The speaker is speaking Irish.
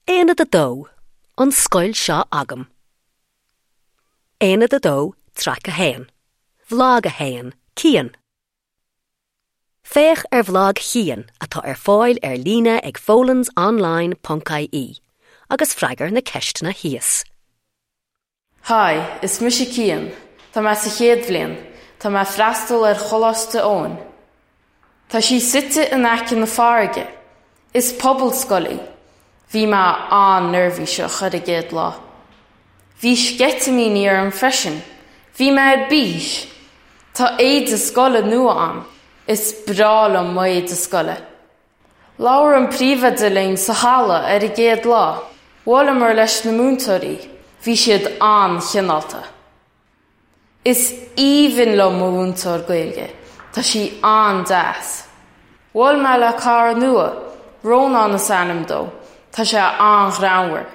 Aonad 2, An scoil seo agam. Aonad 2, Traic 1, Bhlag 1, Cian. Féach ar bhlag Chian atá ar fáil ar líne ag folansonline ponc ie agus freagair na ceisteanna thíos. Hi, is mise Cian. Tá mé sa chéad bhliain. Tá mé ag freastal ar Choláiste Eoin. Tá sí suite in aice na farraige. Is pobalscoil í. Bhí mé an-neirbhíseach ar an gcéad lá. Bhí sceitimíní orm freisin. Bhí mé ar bís! Tá éide scoile nua a'm. Is breá liom mo éide scoile. Labhair an príomhoide linn sa halla ar an gcéad lá. Bhuaileamar leis na múinteoirí. Bhí siad an-chineálta. Is aoibhinn liom mo mhúinteoir Gaeilge. Tá sí an-deas. Bhuail mé le cara nua, Rónán is ainm dó. Tá sé an-ghreannmhar.